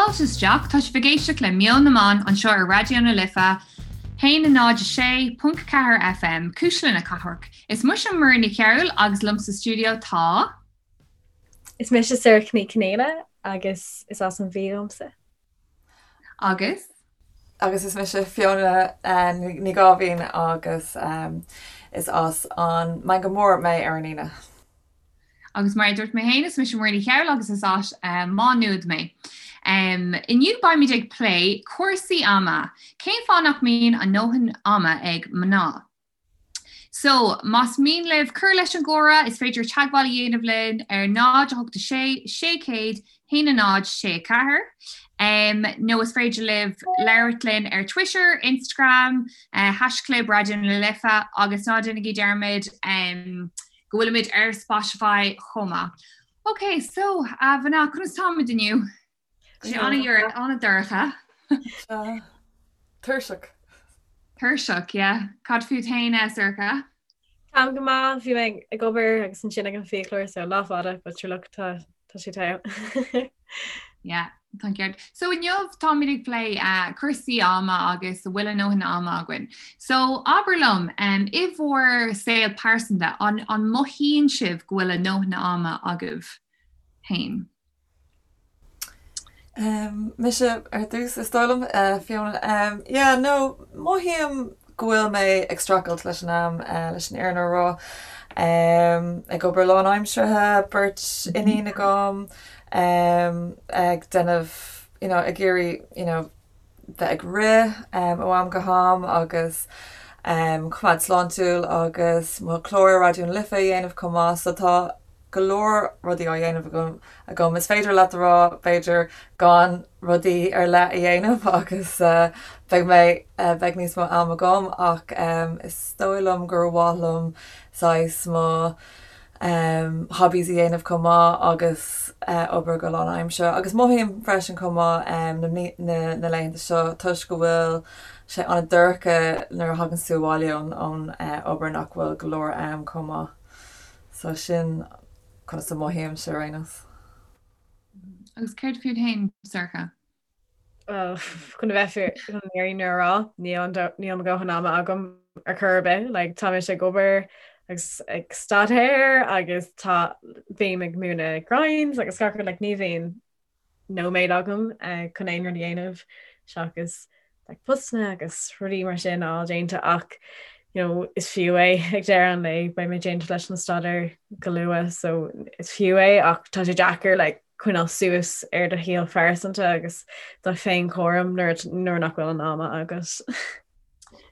Fáilte isteach, tá sibh ag éisteacht le Meon na mBan anseo ar Raidió na Life, 106.4 FM, Cuisle na Cathrach. Is mise Muireann Ní Chearúil agus liom sa stiúideo tá. Is mise Sorcha Ní Chonghaile agus is as an Mhí dhomsa. Agus. Agus is mise Fiona Ní Gáibhín agus is as an Meangadh Mór mé ar an Aoine. Agus mar a dúirt mé féin, is mise Muireann Ní Chearúil agus is as Má Nuad mé. Inniu beimid ag plé cúrsaí ama. Cén fáth nach mbíonn a ndóthain ama ag mná? So, más mian libh cur leis an gcomhrá, is féidir teagmháil a dhéanamh linn ar 0 8 6 600 1 0 6 4 nó is féidir libh labhairt linn ar Twitter, Instagram, haischlib Raidió na Life agus ná déanaigí dearmad go bhfuilimid ar Spotify chomh maith. Ok, so, a mhná, conas táimid inniu? Tá sé an-dorcha. Tuirseach. Tuirseach, yeah. Cad fút féin, a Sorcha? Táim go maith, bhí mé ag obair agus ansin ag an fiaclóir, so lá fada, but sure look, tá sé togha. Yeah. Tá an ceart. So inniu táimid ag plé cúrsaí ama agus an bhfuil a ndóthain ama againn. So abair liom, i bhur saol pearsanta, an an mothaíonn sibh go bhfuil a ndóthain ama agaibh féin? Mise ar dtús, is dóigh liom, Fiona. Yeah, no, mothaím go bhfuil mé ag streachailt leis an am, leis an fhírinne a rá. Ag obair lánaimseartha, beirt iníon agam, ag déanamh, you know, ag iarraidh, you know, bheith ag rith ó am go ham agus coimeád sláintiúil agus mo chlár ar Raidió na Life a dhéanamh chomh maith. So tá go leor rudaí á dhéanamh agam. Is féidir leat a rá, b'fhéidir, gan rudaí ar leith a dhéanamh agus beidh mé, beidh níos mó am agam ach is dóigh liom gur mhaith liom saghas mo hobbies a dhéanamh chomh maith agus obair go lánaimseartha. Agus mothaím freisin chomh maith na na laethanta seo toisc go bhfuil sé an-dorcha nuair a thagann tú abhaile ón obair nach bhfuil go leor am chomh maith. So sin conas a mothaímse ar aon nós. Agus céard fút féin, Sorcha? Well, chun a bheith fíor chun an fhírinne a rá, níl níl mo dhóthain ama agam ar chor ar bith. Like, tá mise ag obair agus ag staidéar agus tá bím ag múineadh grinds agus gach rud, like, ní bhíonn nóiméad agam chun aon rud a dhéanamh seachas like postanna agus rudaí mar sin a fháil déanta ach you know, is fiú é ag deireadh an lae, beidh mé déanta leis an staidéar go luath so is fiú é ach tá sé deacair like, coinneáil suas ar do shaol phearsanta agus do féinchúram nuair nuair nach bhfuil an ama agat.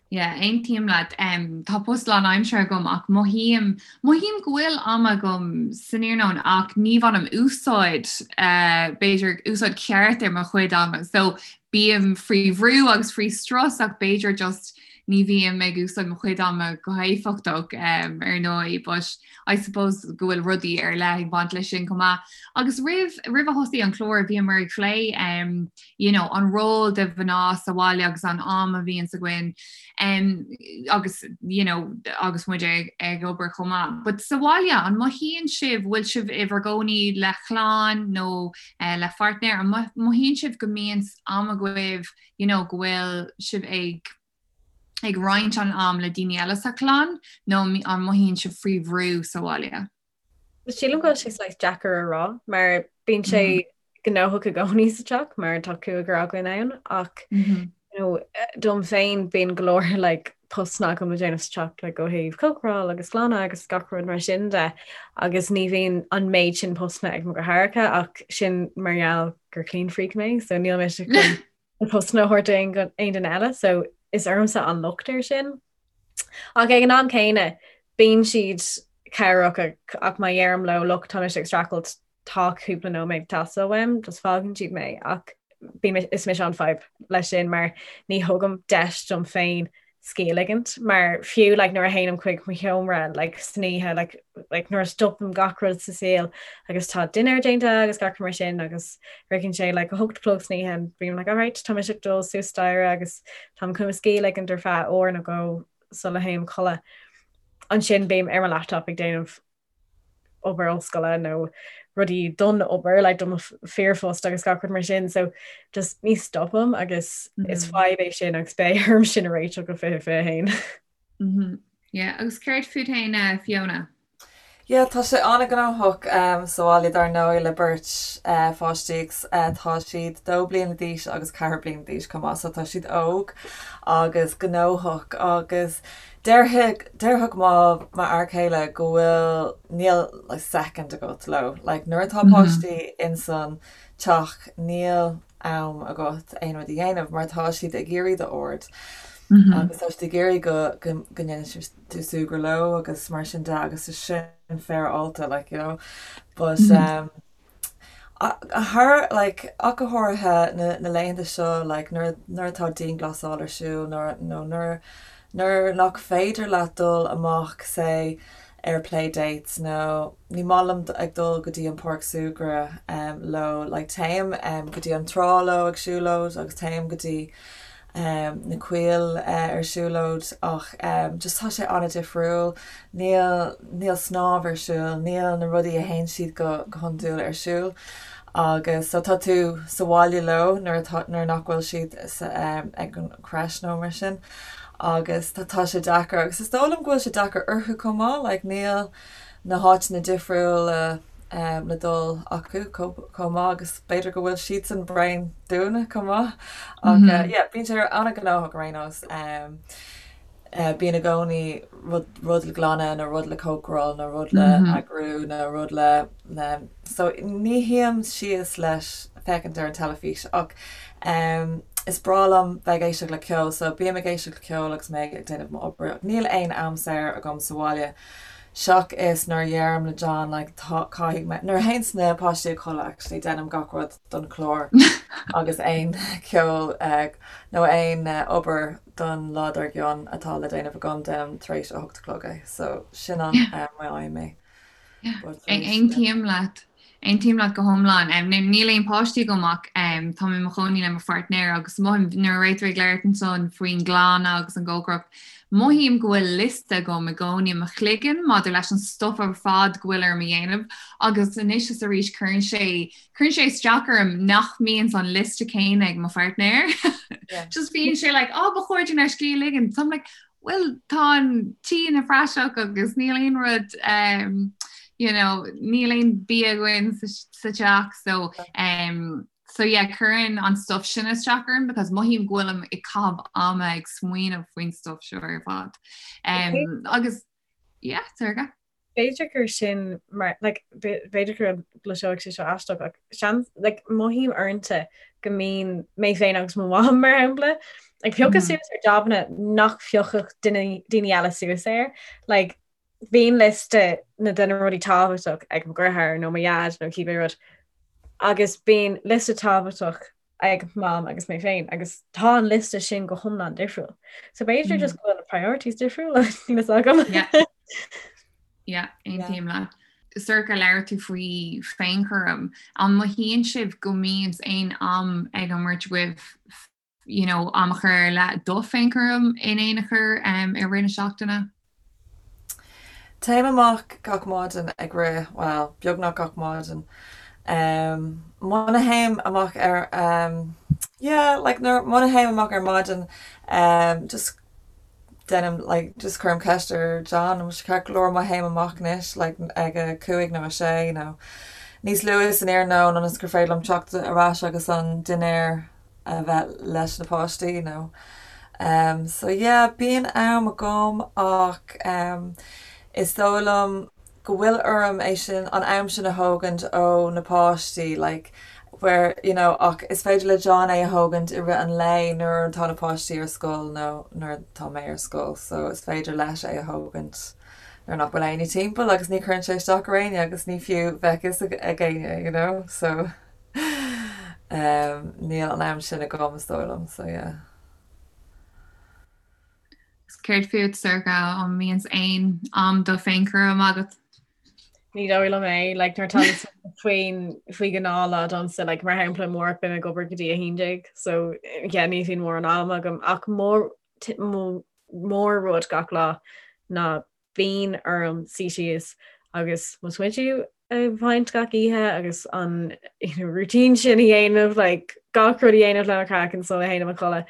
Yeah, aontaím leat. Um, tá post lánaimseartha agam ach mothaím, mothaím go bhfuil am agam san iarnóin ach ní bhainim úsáid, uh, b'fhéidir úsáid ceart ar mo chuid ama. So bím faoi bhrú agus faoi strus ach b'fhéidir just ní bhím ag úsáid mo chuid ama go héifeachtach um, ar ndóigh, but I suppose go bhfuil rudaí ar leith ag baint leis sin chomh maith. Agus roimh, roimh a thosaigh an clár bhíomar ag plé um, you know, an ról de mhná sa bhaile agus an am a bhíonns againn um, agus you know, agus muid ag, ag obair chomh maith. But sa bhaile an mothaíonn sibh bhfuil sibh i bhur gcónaí le clann nó uh, le pháirtnéir an mothaíonn sibh go mbíonn am agaibh you know, go bhfuil sibh ag ag roinnt an am le daoine eile sa chlann nó an mothaíonn sibh faoi bhrú sa bhaile? Sílim go bhfuil sé saghas deacair a rá mar bíonn sé gnóthach i gcónaí sa teach mar tá cúigear againn ann ach you know, dom féin bíonn go leor like, postanna agam le déanamh sa teach like, ó thaobh cócaráil agus glanadh agus gach rud mar sin de agus ní bhíonn an méid sin postanna ag mo dheartháireacha ach sin mar gheall gur clean freak mé so níl mise chun na postanna a thabhairt d'aon duine eile so is ormsa an locht ar sin. Ach ag an am céanna bíonn siad cabhrach ach má dheirim leo look tá mise ag streachailt tá cúpla nóiméad ag teastáil uaim, just fágann siad mé ach bím is mise an fadhb leis sin mar ní thugaim deis dom féin scíth a ligint mar fiú like nuair a théim chuig mo sheomra like san oíche like like nuair a stopaim gach rud sa saol agus tá dinnéar déanta agus gach rud mar sin agus sroicheann sé like a hocht a chlog san oíche and bím like alright tá mise ag dul suas staighre agus táim chun mo scíth a ligint ar feadh uair nó dhó sula théim a chodladh. Ansin bím ar mo laptop ag déanamh obair ollscoile nó rudaí don obair, like do mo fíorphost agus gach rud mar sin, so just ní stopaim agus is fadhb é sin agus beidh orm sin a réiteach go 2021. Yeah, agus céard fút féin, Fiona? Yeah, tá sé an-ghnóthach sa bhaile dar ndóigh le beirt pháistí agus tá siad 2 bliana d'aois agus 4 bliana d'aois chomh maith so tá siad óg agus gnóthach agus déarfadh déarfadh mo m'fhear céile go bhfuil níl like second agat leo like nuair atá páistí insan teach níl am agat aon rud a dhéanamh mar tá siad ag iarraidh d'aird agus tá siad ag iarraidh go go go ndéanann tú súgradh leo agus mar sin de agus is sin féaráilte like you know but um thar like ach go háirithe na na laethanta seo like nuair nuair atá dianghlasáil ar siúl nuair nó nuair nuair nach féidir leat dul amach say ar play dates nó ní maith liom ag dul go dtí an páirc súgradh leo like téim go dtí an trá leo ag siúlóid agus téim go dtí na coill ar siúlóid ach just tá sé an-difriúil níl níl snámh ar siúl níl na rudaí a théann siad go go hiondúil ar siúl agus so tá tú sa bhaile leo nuair atá nuair nach bhfuil siad sa ag an creche nó mar sin agus tá tá sé deacair agus is dóigh liom go bhfuil sé deacair orthu chomh maith like níl na háiteanna difriúla le dul acu chomh maith agus b'fhéidir go bhfuil siadsan bréan dúinne chomh maith ach yeah bíonn sé an-ghnóthach ar aon nós. Bíonn i gcónaí rud rud le glanadh nó rud le cócaráil nó rud le eagrú nó rud le le so ní shuím síos leis féachaint ar an teilifís ach is breá liom bheith ag éisteacht le ceol so bím ag éisteacht le ceol agus mé ag déanamh m'obair ach níl aon am saor agam sa bhaile seachas nuair a dheirim le John like tá caithfidh mé nuair a théanns na páistí a chodladh actually déanaim gach rud don chlár agus aon ceol nó aon obair don lá dár gcionn atá le déanamh agam déanaim tar éis a hocht a chlog é so sin an am a fhaighim é. Aontaím leat. Aontaím leat go hiomlán. Níl aon páistí agam ach tá mé i mo chónaí le mo pháirtnéir agus mothaím nuair a raibh tú ag labhairt ansan faoin nglanadh agus an gcócaireacht, mothaím go bhfuil liosta agam i gcónaí i mo chloigeann maidir leis an stuff ar fad go bhfuil orm a dhéanamh agus anois is arís cuireann sé cuireann sé isteach orm nach mbíonn an liosta céanna ag mo pháirtnéir. Just bíonn sé like, oh, ba chóir dúinn ár scíth a ligean. So I'm like, Bhuel, tá an tí ina phraiseach agus níl aon rud um, you know, níl aon bia againn sa, sa teach so um, so yeah, cuireann an stuff sin isteach orm because mothaím go bhfuilim ag caitheamh ama ag smaoineamh faoin stuff seo ar fad. Um, agus yeah, Sorcha. B'fhéidir gur sin mar like b'fhéidir go gcloisfeadh sé seo aisteach ach seans like mothaím uaireanta go mbíonn mé féin agus mo mham mar shampla ag piocadh suas ar jabanna nach bpiocfadh daoine eile suas air. Like bíonn liosta na de na rudaí tábhachtach ag mo dheartháir nó mo dhaid nó cibé rud agus bíonn liosta tábhachtach ag Mam agus mé féin agus tá an liosta sin go hiomlán difriúil. So b'fhéidir mm. just go bhfuil na priorities difriúil níl a fhios agam. Yeah, aontaím leat. Sorcha labhair tú faoi féinchúram. An mothaíonn sibh go mbíonn aon am ag an mbeirt agaibh you know, am a chur ar leith do féinchúram in aon chor um, i rith na seachtaine? Téim amach gach maidin ag rith, bhuel, beagnach gach maidin. Muna théim amach ar, yeah, like nuair, muna théim amach ar maidin, just déanaim, like, just cuirim ceist ar John, an bhfuil sé ceart go leor má théim amach anois, like, ag a cúig nó a sé nó níos luaithe san iarnóin ionas gur féidir liom teacht ar ais agus an dinnéar a bheith leis na páistí nó um so yeah bíonn am agam ach um is dóigh liom go bhfuil orm é sin an am sin a thógaint ó na páistí like where you know ach is féidir le John é a thógaint i rith an lae nuair atá na páistí ar scoil nó nuair atá mé ar scoil so is féidir leis é a thógaint nuair nach bhfuil éinne timpeall agus ní chuireann sé isteach ar éinne agus ní fiú bheadh fhios ag éinne you know so Níl an am sin agam is dóigh liom, so yeah. Céard fút, Sorcha, an mbíonn aon am do féinchúram agat? Ní dóigh liom é, like, nuair atá faoin faoi ghnáthlá domsa, like, mar shampla amárach beidh mé ag obair go dtí 11, so yeah, ní bhíonn mórán am agam ach mór mór rud gach lá ná bíonn orm suí síos agus mo smideadh. a bhaint gach oíche agus an you know, routine sin a dhéanamh like, gach rud a dhéanamh le mo chraiceann sula théim a chodladh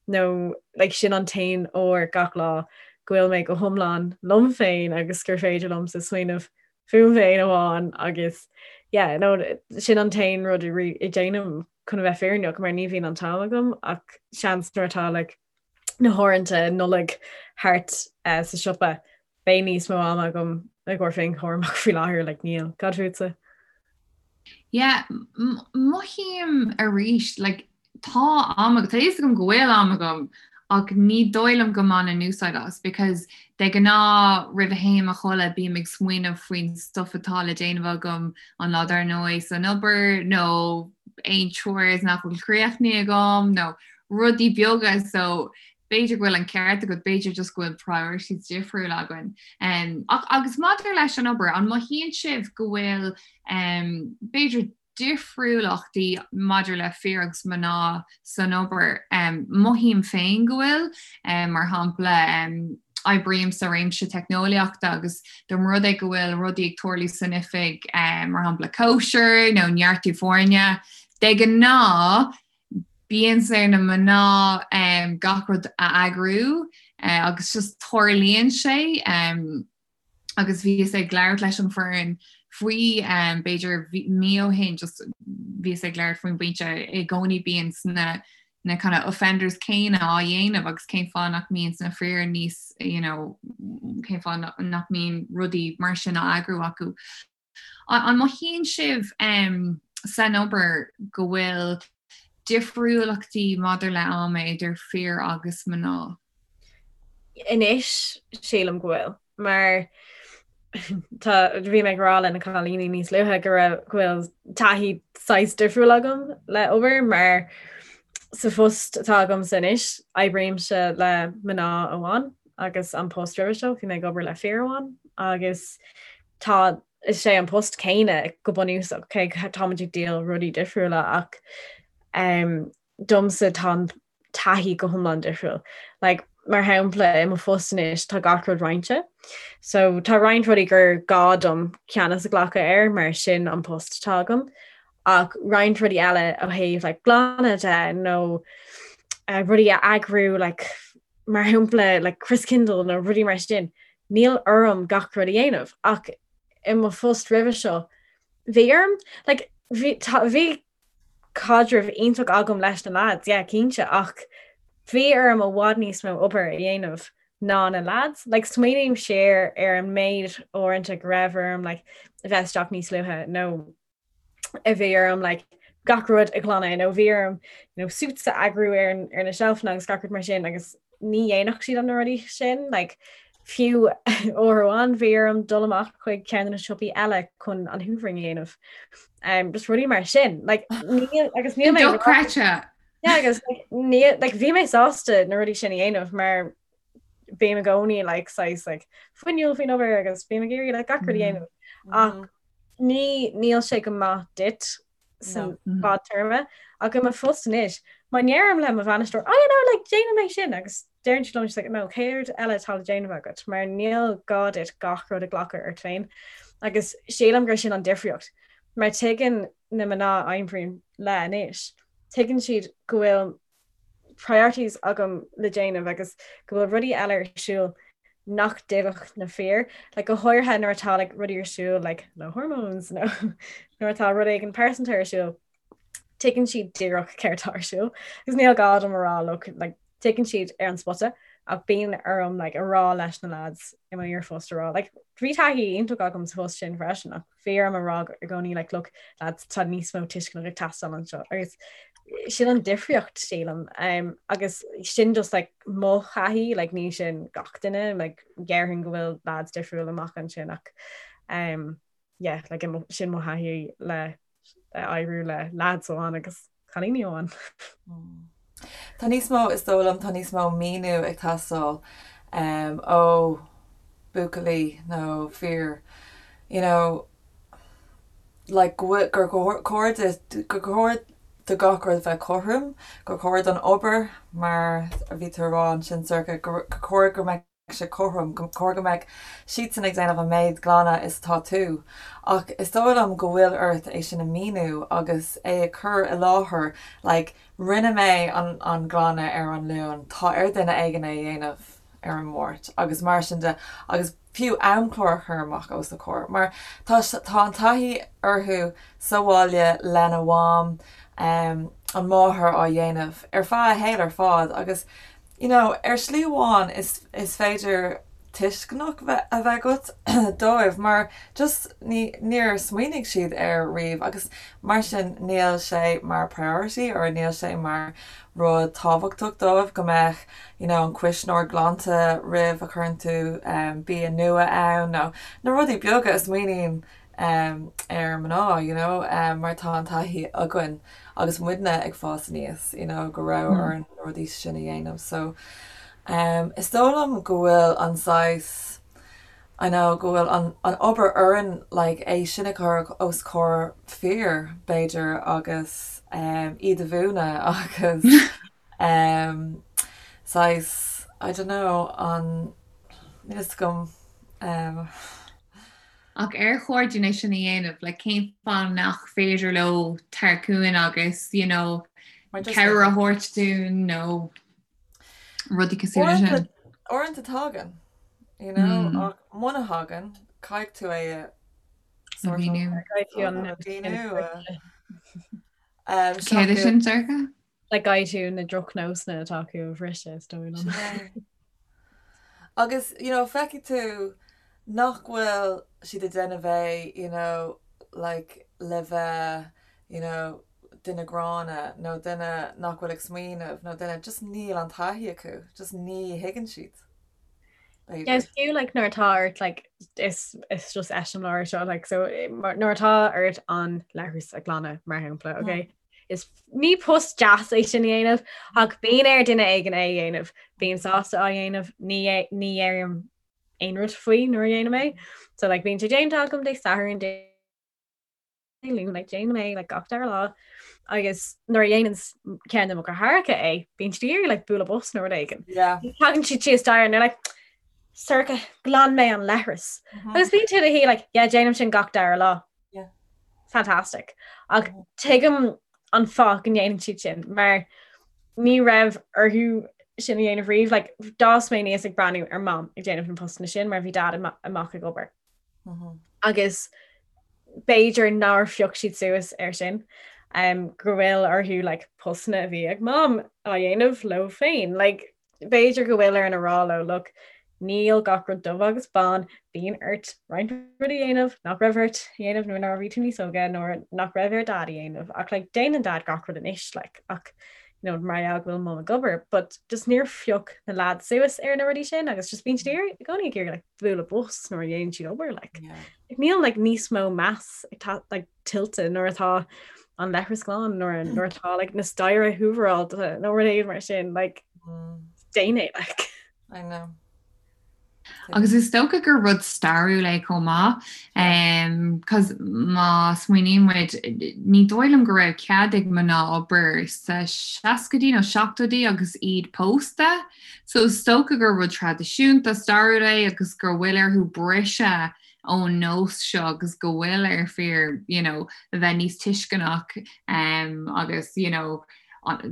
nó like, sin an t-aon uair gach lá go bhfuil mé go hiomlán liom féin agus gur féidir liomsa smaoineamh fúm féin amháin agus yeah, no, sin an t-aon rud a dhéanaim chun a bheith fírinneach mar ní bhíonn an t-am agam ach seans nuair atá like, na huaireanta Nollag thart uh, sa siopa beidh níos mó ama agam i gcomhair féinchúram ach faoi láthair like, níl. Cad fútsa? Yeah, mothaím arís like, tá am tá fhios agam go bhfuil am agam ach ní dóigh liom go mbainim úsáid as because de ghnáth roimh a théim a chodladh bím ag smaoineamh faoin stuff atá le déanamh agam an lá dar ndóigh san obair nó aon chores nach bhfuil críochnaithe agam nó rudaí beaga so b'fhéidir go bhfuil an ceart agat, b'fhéidir just go bhfuil priorities difriúil againn. Um, ach agus maidir leis an obair, an mothaíonn sibh go bhfuil um, b'fhéidir difriúlachtaí maidir le fir agus mná san obair? Um, mothaím féin go bhfuil, um, mar shampla, um, oibrím sa réimse teicneolaíochta agus dá mba rud é go bhfuil rudaí ag tarlú san oifig, um, mar shampla cóisir nó neartú foirne, de ghnáth Bíonn ar na mná gach rud a eagrú agus just tarlaíonn sé agus bhíos ag labhairt leis an foireann faoi b'fhéidir mí ó shin just bhíos ag labhairt faoin bpointe i gcónaí bíonn na na kind of offenders céanna á dhéanamh agus cén fáth nach mbíonn na fir níos you know cén fáth nach mbíonn rudaí mar sin á eagrú acu. An mothaíonn sibh san obair go bhfuil difriúlachtaí maidir le am idir fir agus mná? Anois, sílim go bhfuil. Mar tá, bhí mé ag rá le na cailíní níos luaithe go raibh, go bhfuil taithí saghas difriúil agam le obair mar sa phost atá agamsa anois, oibrímse le mná amháin agus an post roimhe seo bhí mé ag obair le fir amháin agus tá is é an post céanna go bunúsach cé táimid ag díol rudaí difriúla ach um, domsa tá an taithí go hiomlán difriúil. Like, mar shampla i mo phost anois tá gach rud roinnte. So tá roinnt rudaí gur gá dom ceannas a ghlacadh air mar sin an post atá agam. Ach roinnt rudaí eile ó thaobh like, glanadh de nó uh, rudaí a eagrú like, mar shampla like Christkindl nó rudaí mar sin, níl orm gach rud a dhéanamh ach i mo phost roimhe seo bhí orm like bhí bhí caidreamh iontach agam leis na lads, yeah, cinnte, ach bhí orm i bhfad níos mó obair a dhéanamh ná na lads. Like smaoiním siar ar an méid uaireanta go raibh orm like a bheith isteach níos luaithe nó a bhí orm like, gach rud a ghlanadh nó bhí orm you know, suits a eagrú ar, an, ar na seilfeanna agus gach rud mar sin agus ní dhéanfadh siad an na rudaí sin like, fiú uair amháin bhí orm dul amach chuig ceann de na siopaí eile chun an hoovering a dhéanamh. Um, just rudaí mar sin like, ní, agus níl mé Dochreidte. Yeah, agus like, ní, like, bhí mé sásta na rudaí sin a dhéanamh mar bím i gcónaí like, saghas like, fuinniúil faoin obair agus bím ag iarraidh like, gach rud a dhéanamh. Ach ní níl sé go maith duit san mm-hmm. fadtéarma ach i mo phost anois má ndeirim le mo bhainisteoir oh you know like déanfaidh mé sin agus deireann siad liom like no céard eile atá le déanamh agat mar níl gá duit gach rud a ghlacadh ort féin agus sílim gur sin an difríocht mar tuigeann na mná a oibrím le anois tuigeann siad go bhfuil priorities agam le déanamh agus go bhfuil rudaí eile ar siúl nach dtuigfeadh na fir, like, go háirithe nuair atá like, rudaí ar siúl like, le hormones nó nuair atá rud éigin pearsanta ar siúl, tuigeann siad díreach céard atá ar siúl. Agus níl gá dom a rá look, like, tuigeann siad ar an spota ach bíonn orm like, a rá leis na lads i mo iarphost a rá. Like, bhí taithí iontach agam sa phost sin freisin ach bhí orm a rá i gcónaí like, look, lads, tá níos mó tuisceana ag teastáil anseo. Agus sin an difríocht sílim um, agus sin just like, mo thaithí like, ní sin gach duine like, déarfainn go bhfuil lads difriúil amach ansin ach um, yeah, like, sin mo thaithí le oibriú le lads amháin agus cailíní amháin. Mm. Tá níos mó is dóigh liom tá níos mó míniú ag teastáil um, ó buachaillí nó fir you know, like gur chóir gur chóir do gach rud bheith cothrom, gur chóir don obair mar a bhí tú a rá ansin Sorcha, gur chóir go mbeadh. sé cothrom, gur chóir go mbeadh siadsan ag déanamh an méid glanadh is atá tú. Ach is dóigh liom go bhfuil ort é sin a mhíniú agus é a chur i láthair like rinne mé an an glanadh ar an Luan, tá ar duine éigin é a dhéanamh ar an Máirt agus mar sin de agus fiú amchlár a chur amach os a comhair mar tá tá an taithí orthu sa bhaile lena mham, an máthair á dhéanamh ar feadh a shaol ar fad agus you know, ar shlí amháin is, is féidir tuisceanach a bheith agat dóibh mar just ní, níor smaoinigh siad air riamh agus mar sin níl sé mar priority or níl sé mar rud tábhachtach dóibh go mbeadh you know, an cuisneoir glanta roimh a chuireann tú um, bia nua ann nó na rudaí beaga a smaoiníonn ar mná, you know, mar tá an taithí againn agus muidne ag fás aníos, you know, go raibh orainn na rudaí sin a dhéanamh. So, is dóigh liom go bhfuil an saghas, I know, go bhfuil an, an obair orainn like é sin a chur os comhair fir, b'fhéidir, agus iad a mhúineadh agus saghas, I don't know, an, níl fhios agam. Ach ar chóir dúinn é sin a dhéanamh? Like cén fáth nach féidir leo teacht chugainn agus you know cabhair a thabhairt dúinn nó rudaí cosúil leis sin? Uaireanta tagann, you know, mm. ach muna thagann, caithfidh tú é a mhíniú. Céard é sin Sorcha? Like caithfidh tú na drochnósanna atá acu a bhriseadh is dóigh liom. Agus you know feicfidh tú nach bhfuil siad ag déanamh é you know like le bheith you know duine gránna nó duine nach bhfuil ag smaoineamh nó duine just níl an taithí acu, just ní thuigeann siad. B'fhéidir. Is fiú like nuair atá ort like is is just eiseamláir seo like so nuair atá ort an leithreas a ghlanadh mar shampla okay Is ní post deas é sin a dhéanamh ach bíonn ar duine éigin é a dhéanamh. Bím sásta á dhéanamh, ní ní dheirim aon rud faoi nuair a dhéanaim é. So like bíonn sé déanta agam Dé Sathairn, Dé Luain, like déanaim é like gach dara lá. Agus nuair a dhéanann ceann de mo dheartháireacha é, bíonn siad ag iarraidh like bualadh bos nó rud éigin. Yeah. Tagann siad síos staighre and they're like Sorcha, ghlan mé an leithreas. Agus bíonn tú i do shuí like yeah déanaim sin gach dara lá. Yeah. Fantastic. Ach tuigim an fáth go ndéanann siad sin mar ní raibh orthu sin a dhéanamh riamh. Like, d'fhás mé aníos ag breathnú ar Mam ag déanamh na postanna sin mar bhí Dad amach ag obair. Mm -hmm. Agus b'fhéidir nár phioc siad suas air sin um, go bhfuil orthu like, postanna a bhí ag Mam á dhéanamh leo féin. Like, B'fhéidir go bhfuil orainn a rá leo, look, níl gach rud dubh agus bán, bíonn ort roinnt rudaí a dhéanamh nach raibh ort a dhéanamh nuair a bhí tú níos óige nó nach raibh ar Dad a dhéanamh ach like déanann Dad gach rud anois like ach you know mar gheall go bhfuil Mum ag obair but just níor phioc na lads suas ar na rudaí sin agus just bíonn siad i gcónaí ag iarraidh like bualadh bos nuair a dhéanann siad obair like. Yeah. Níl like níos mó meas ag like tuillte nuair atá an leithreas glan nuair nuair atá like, na staighre húvaráilte nó rud éigin mar sin like, mm. déan é like. I know. Agus is dócha gur rud stairiúil é chomh maith, um, cos má smaoiníonn muid ní dóigh liom go raibh cead ag mná obair sa seascaidí nó seachtóidí agus iad pósta, so is dócha gur rud traidisiúnta stairiúil é agus go bhfuil orthu briseadh ón nós seo agus go bhfuil ar fir you know, a bheith níos tuisceanach um, agus you know,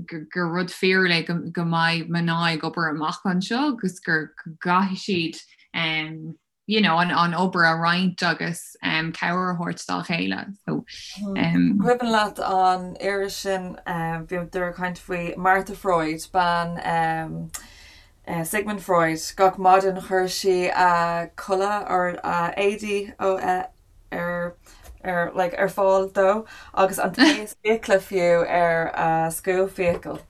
gur rud fíorúil é go, go mbeidh mná ag obair amach anseo agus gur gcaithfidh siad um, you know, an, an obair a roinnt agus um, cabhair a thabhairt dá chéile. So, um, Cuimhin leat an iris sin um, bhíodar ag caint faoi Martha Freud, bean um, Sigmund Freud, Gach maidin chuir sí a culaith or a éadaí ar ar like ar fáil dó agus an taos fiacla fiú ar a scuab fiacal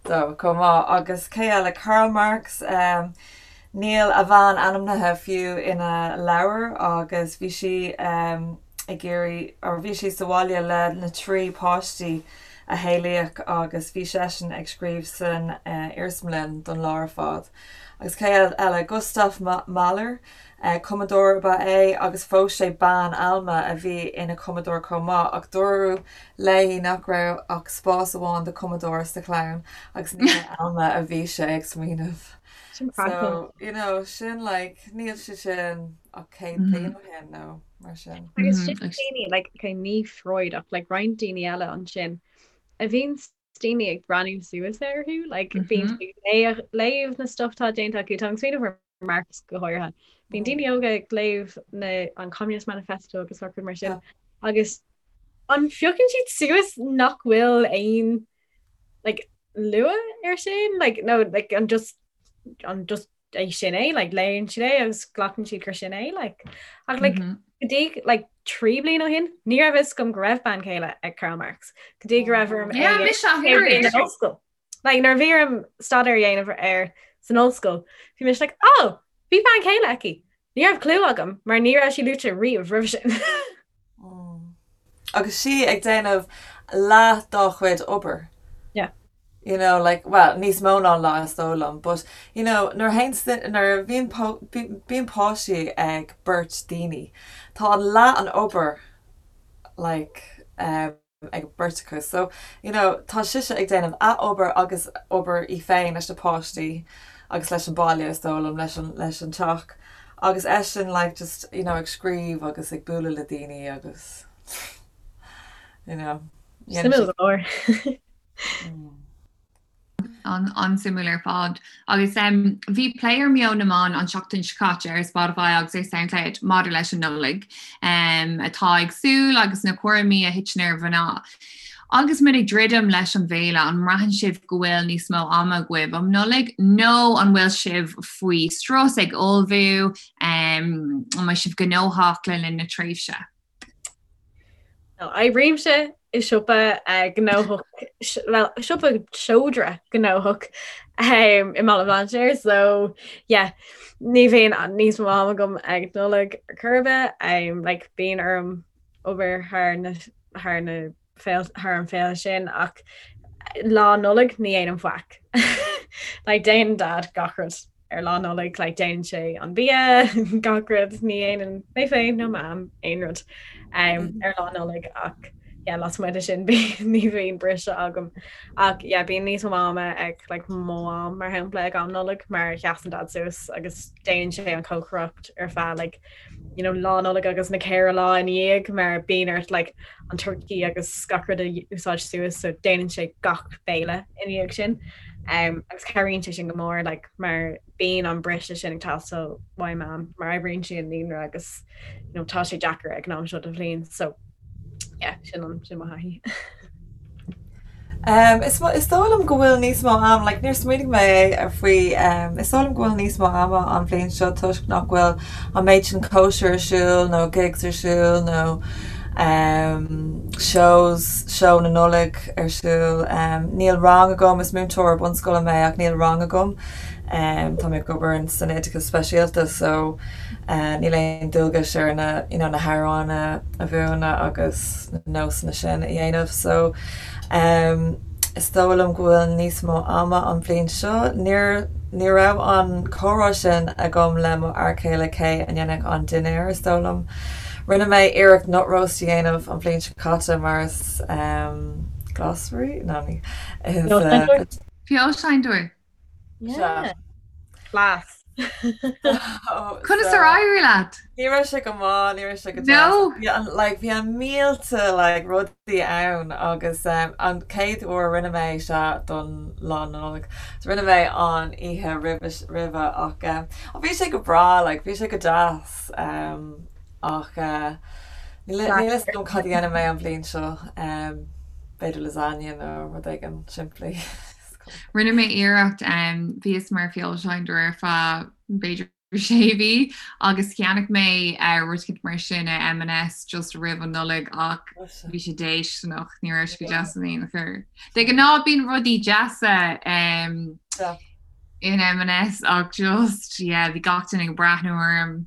dó chomh maith. Agus cé eile? Karl Marx, níl a bhean ainmnithe fiú ina leabhar agus bhí sí ag iarraidh or bhí sí sa bhaile le na trí páistí. a saolaíodh agus bhí seisean ag scríobh san iarsmalann don lá ar fad. Agus cé eile? Gustav Mahler, cumadóir ab ea é agus phós sé bean, Alma, a bhí ina cumadóir chomh maith ach dúradh léi nach raibh ach spás amháin do chumadóir sa chlann agus ní ar Alma a bhí sé ag smaoineamh. Sin craiceáilte. So, you know, sin like, níl sé sin ach 100 bliain ó shin nó mar sin. Agus sin daoine, like, okay, ní Freud ach like roinnt daoine eile ansin a bhíonn daoine ag breathnú suas orthu, like bíonn siad ag léamh na stuff atá déanta acu, tá mé ag smaoineamh ar Marx go háirithe. Bíonn daoine óga ag léamh na an Communist Manifesto agus gach rud mar sin agus an phiocann siad suas nach bhfuil aon like lua ar sin like no like an just an just é sin é like léann siad é agus glacann siad gur sin é like ach like mm -hmm. go dtí like 3 bliain ó shin ní raibh fhios agam go raibh bean chéile ag Karl Marx go dtí go raibh orm yeah, ollscoil like nuair a bhí orm staidéar a dhéanamh air san ollscoil bhí mise like oh bhí bean chéile aici ní raibh clue agam mar ní raibh sí luaite riamh roimhe sin Agus sí ag déanamh leath dá chuid obair. Yeah. You know, like, well, níos mó ná leath is dóigh liom, but, you know, nuair a théann, nuair a bhíonn, bíonn páistí ag beirt daoine, tá an leath an obair, like, um, ag beirt acu. So, you know, tá sise ag déanamh a obair agus obair í féin leis na páistí agus leis an baile is dóigh liom, leis an, leis an teach. Agus eisean like just, you know, ag scríobh agus ag bualadh le daoine agus, you know. Suimiúil go leor. An-suimiúil ar fad. Agus bhí plé ar Meon na Meán an tseachtain seo caite ar Spotify agus ar Soundcloud maidir leis an Nollaig atá ag súil agus na cúraimí a thiteann ar mhná. Agus muid ag druidim leis an bhféile, an mbraitheann sibh go bhfuil níos mó ama agaibh um Nollaig nó an bhfuil sibh faoi strus ag ullmhú, an mbeidh sibh gnóthach le linn na tréimhse? Oibrímse i siopa gnóthach, well, siopa seodra gnóthach i mBaile Bhlainséir, so yeah, ní bhíonn níos mó ama agam ag Nollaig ar chor ar bith, like bíonn orm obair thar na thar na thar an féile sin ach lá Nollag ní dhéanaim faic. Like déanann Dad gach rud ar lá Nollag, like déanann sé an bia, gach rud, ní dhéanann mé féin nó Mam aon rud um, ar lá Nollag ach yeah, lasmuigh de sin ní bhíonn briseadh agam. Ach yeah, bíonn níos mó ama ag like, mo mham mar shampla ag am Nollag mar sheasann Dad suas agus déanann sé an chócaireacht ar feadh like, you know, lá Nollag agus na ceithre lá ina dhiaidh mar bíonn ort like, an turkey agus gach rud a úsáid suas so déanann sé gach béile ina dhiaidh sin. Um, agus cabhraíonn sé sin go mór like, mar bíonn an briseadh sin ag teastáil uaidh Mam mar oibríonn sí i naíonra agus you know, tá sé deacair ag an am seo den bhliain so yeah, sin an sin mo thaithí. Um, is, is dóigh liom go bhfuil níos mó am, like, níor smaoinigh mé ar faoi, um, is dóigh liom go bhfuil níos mó ama an bhliain seo toisc nach bhfuil an méid sin cóisir ar siúl nó gigs ar siúl nó um, shows, seó na Nollag ar siúl. Um, níl rang agam, is múinteoir bunscoile mé ach níl rang agam. Um, tá mé ag obair san oideachas speisialta so uh, níl aon dualgas ar na, you know, na hamhráin a, a mhúineadh agus na nósanna sin a dhéanamh so um, is dóigh liom go bhfuil níos mó ama an bhliain seo. Níor ní raibh an comhrá sin agam le mo fhear céile cé a dhéanfadh an dinnéar is dóigh liom. Rinne mé iarracht nut roast a dhéanamh an bhliain seo caite mar is um, glasraí? No, ní is uh, Feoilséantóir. Yeah. Class. Conas ar éirigh leat? Ní raibh sé go maith, ní raibh sé go deas. No! Bhí an like bhí an mílte like rudaí ann agus um, an chéad uair a rinne mé sea don lá Nollag. So rinne mé an oíche roimhe roimhe ach um, bhí sé go breá like bhí sé go deas um, ach uh, níl níl a fhios agam cad a dhéanfaidh mé an bhliain seo um, b'fhéidir lasagne nó rud éigin simplí. Rinne mé iarracht, bhíos mar feoilséantóir ar feadh b'fhéidir sé mhí agus cheannaigh mé rud éicint mar sin i M&S just roimh an Nollaig ach bhí sé déistineach, ní raibh sé go deas in aon chor. De ghnáth bíonn rudaí deasa in M&S ach just, yeah, bhí gach duine ag breathnú orm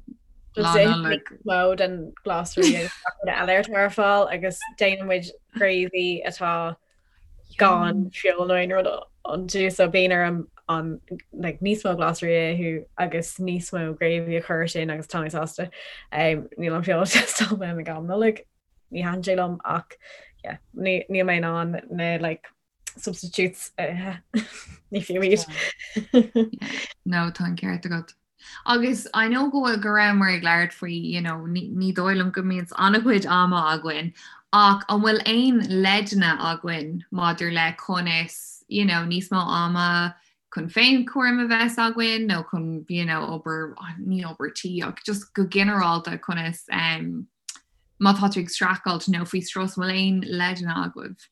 Lá Nollag. Mó den glasraí agus gach rud eile atá ar fáil agus déanann muid gravy atá. Gan feoil nó aon rud iontu so bíonn orm an like níos mó glasraí a ithe agus níos mó gravy a chur sin agus tá mé sásta. Um, níl an feoil ag teastáil uaim ag am Nollag, ní thaitníonn sé liom ach yeah, ní, níl mé in ann na like substitutes a ithe. Ní fiú iad. No, tá an ceart agat. Agus I know go bhfuil go rabhamar ag labhairt faoi you know ní ní dóigh liom go mbíonn an-chuid ama againn ach an bhfuil aon leideanna againn maidir le conas you know níos mó ama chun féinchúram a bheith againn nó chun you know obair ní obair tí ach just go ginearálta conas um, má tá tú ag streachailt nó faoi strus an bhfuil aon leideanna agaibh?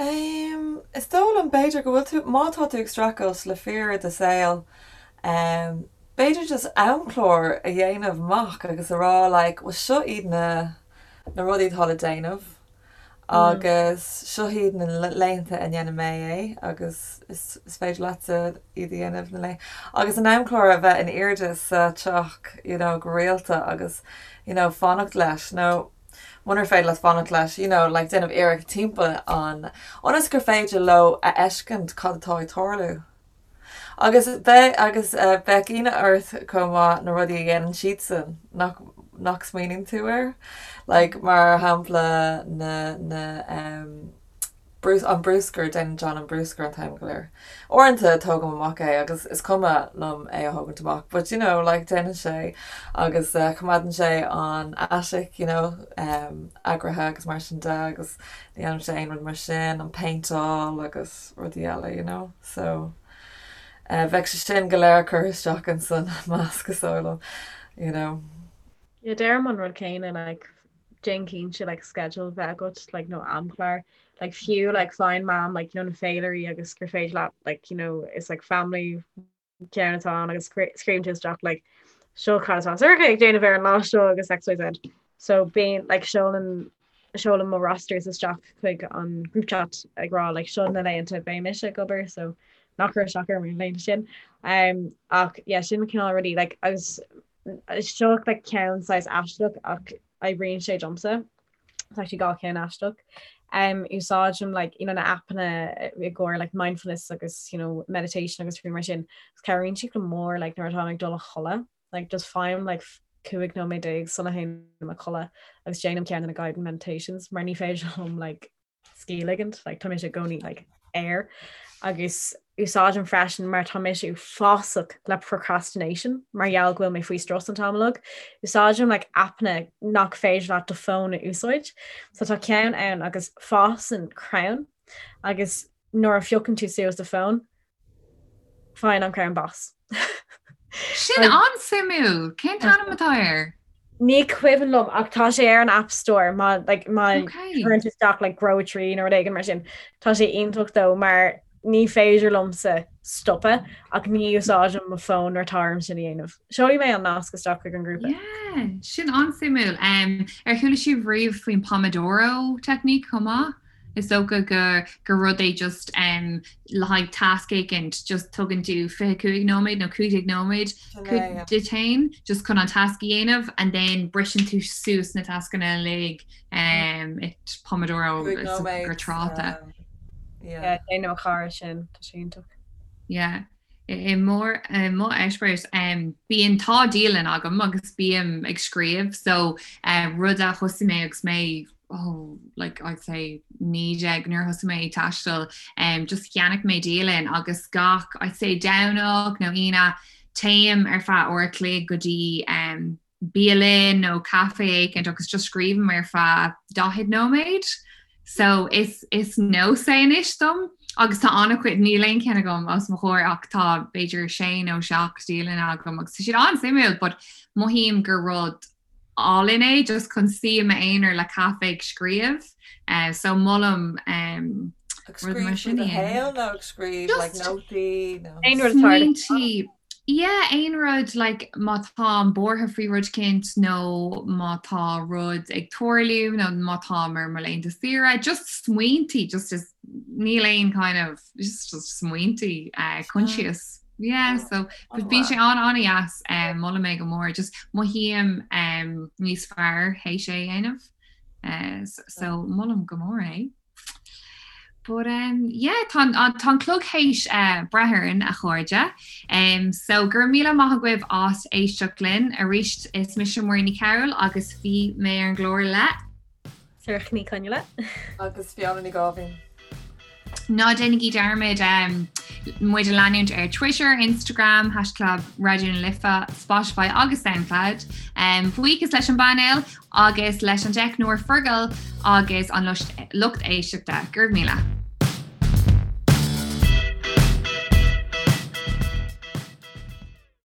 Is dóigh liom b'fhéidir go bhfuil tú, má tá tú ag streachailt le fíor i do saol, b'fhéidir just amchlár a dhéanamh amach agus a rá like bhuel seo iad na na rudaí atá le déanamh agus seo iad na laethanta a ndéanfaidh mé é agus is is féidir leatsa iad a dhéanamh na lae agus an amchlár a bheith in airde sa teach you know go rialta agus you know fanacht leis nó munar féidir leat fanacht leis, you know, like déanamh iarracht timpeall an, ionas gur féidir leo a fheiscint cad atá ag tarlú. Agus beidh, agus bheadh ionadh ort chomh maith na rudaí a dhéanann siadsan nach, nach smaoiníonn tú air. Like mar shampla na, na, em, an bruscar, déanann John an bruscar an t-am go léir. Uaireanta tógaim amach é agus is cuma liom é a thógaint amach but you know like déanann sé agus coimeádann sé an attic you know eagraithe agus mar sin de agus ní dhéanann sé aon rud mar sin, an péinteáil agus rudaí eile you know so bheadh sé sin go léir curtha isteach insan measc is dóigh liom you know. Yeah, deirim an rud céanna like déan cinnte like schedule bheith agat like nó amchlár like fiú like faigheann Mam like you know na féilirí agus gur féidir leat like you know is like family ceann atá ann agus scríobhann tú isteach like seo cad atá Sorcha ag déanamh ar an lá seo agus XYZ. So bíonn like seolann seolaim mo rosters isteach chuig an group chat ag rá like seo na laethanta beidh mise ag obair so ná cuir isteach orm ar na laethanta sin. Um, ach yeah, sin cineál rudaí like agus Seo like ceann saghas aisteach ach oibríonn sé domsa. It's actually gach ceann aisteach. Um, úsáidim like, you know, na appanna i gcomhair like, mindfulness agus you know, meditation agus rudaí mar sin. Agus cabhraíonn siad go mór like, nuair atá ag dul a chodladh. Like, just faighim like, 15 nóiméad sula théim a chodladh agus déanaim ceann de na guided meditations mar ní féidir liom like, scíth a ligint, like, tá mise i gcónaí like, air agus úsáidim freisin mar tá mise uafásach le procrastination mar gheall go bhfuil mé faoi strus an t-am uilig. Úsáidim like, appanna nach féidir leat do fón a úsáid. So tá ceann ann agus fásann crann agus nuair a phiocann tú suas do fón, Faigheann an crann bás. Sin an-suimiúil! Cén t-ainm atá air? Ní cuimhin liom ach tá sé ar an App Store má like, má chuireann tú isteach like, grow a tree nó rud éigin mar sin. Tá sé iontach dó mar ní féidir liomsa stopadh ach ní úsáidim mo fón nuair atá orm sin a dhéanamh. Seolfaidh mé an nasc isteach chuig an ngrúpa. Yeah, sin an-suimiúil. Um, ar chuala sibh riamh faoin Pomodoro technique chomh maith? Is dócha go gur rud é just um, le haghaidh tasc éicint, just tugann tú 25 nóiméad nó 15 nóiméad duit féin just chun an tasc a dhéanamh and then briseann tú suas na tascanna uilig um, it Pomodoro gur tráta. Yeah, déanann mo chara sin, tá sé iontach. Yeah. I mo eispéireas, bíonn tá dialann agam agus bím ag scríobh so rud a thosaigh mé agus mé oh like I'd say 19 nuair a thosaigh mé ag taisteal just cheannaigh mé dialann agus gach I'd say Domhnach nó Aoine téim ar feadh uair a chloig go dtí bialann nó caife éicint agus just scríobhaim ar feadh 40 nóiméad. So is is nós é anois dom agus tá an-chuid níl aon cheann agam os mo chomhair ach tá b'fhéidir sé nó seacht dialann agam agus tá siad an-suimiúil but mothaím gur rud álainn é just chun suí i m'aonar le caife ag scríobh. Uh, so molaim um, Ag scríobh faoi do shaol nó ag scríobh like nótaí nó Aon rud atá Smaointí Yeah, aon rud like má táim buartha faoi rud éicint nó má tá rud ag tarlú nó má táim ar mo laethanta saoire, just smaointí, just is níl aon kind of just, just smaointí uh, conscious. Yeah, so but bíonn sé an an-dheas um, molaim é go mór, just mothaím um, níos fearr théis é a dhéanamh. So molaim go mór é. But um, yeah, tá tá an clog théis uh, breith orainn a chairde. Um, so go raibh míle maith agaibh as éisteacht linn arís is mise Muireann Ní Chearúil agus bhí mé ar an gclár le Sorcha Ní Chonghaile. Agus Fiona Ní Gáibhín. Ná déanaigí dearmad um, muid a leanúint ar Twitter, Instagram, haischlib Raidió na Life, Spotify agus Soundcloud. Um, buíochas leis an bpainéal agus leis an dteicneoir Fergal agus an lucht éisteachta. Go raibh míle.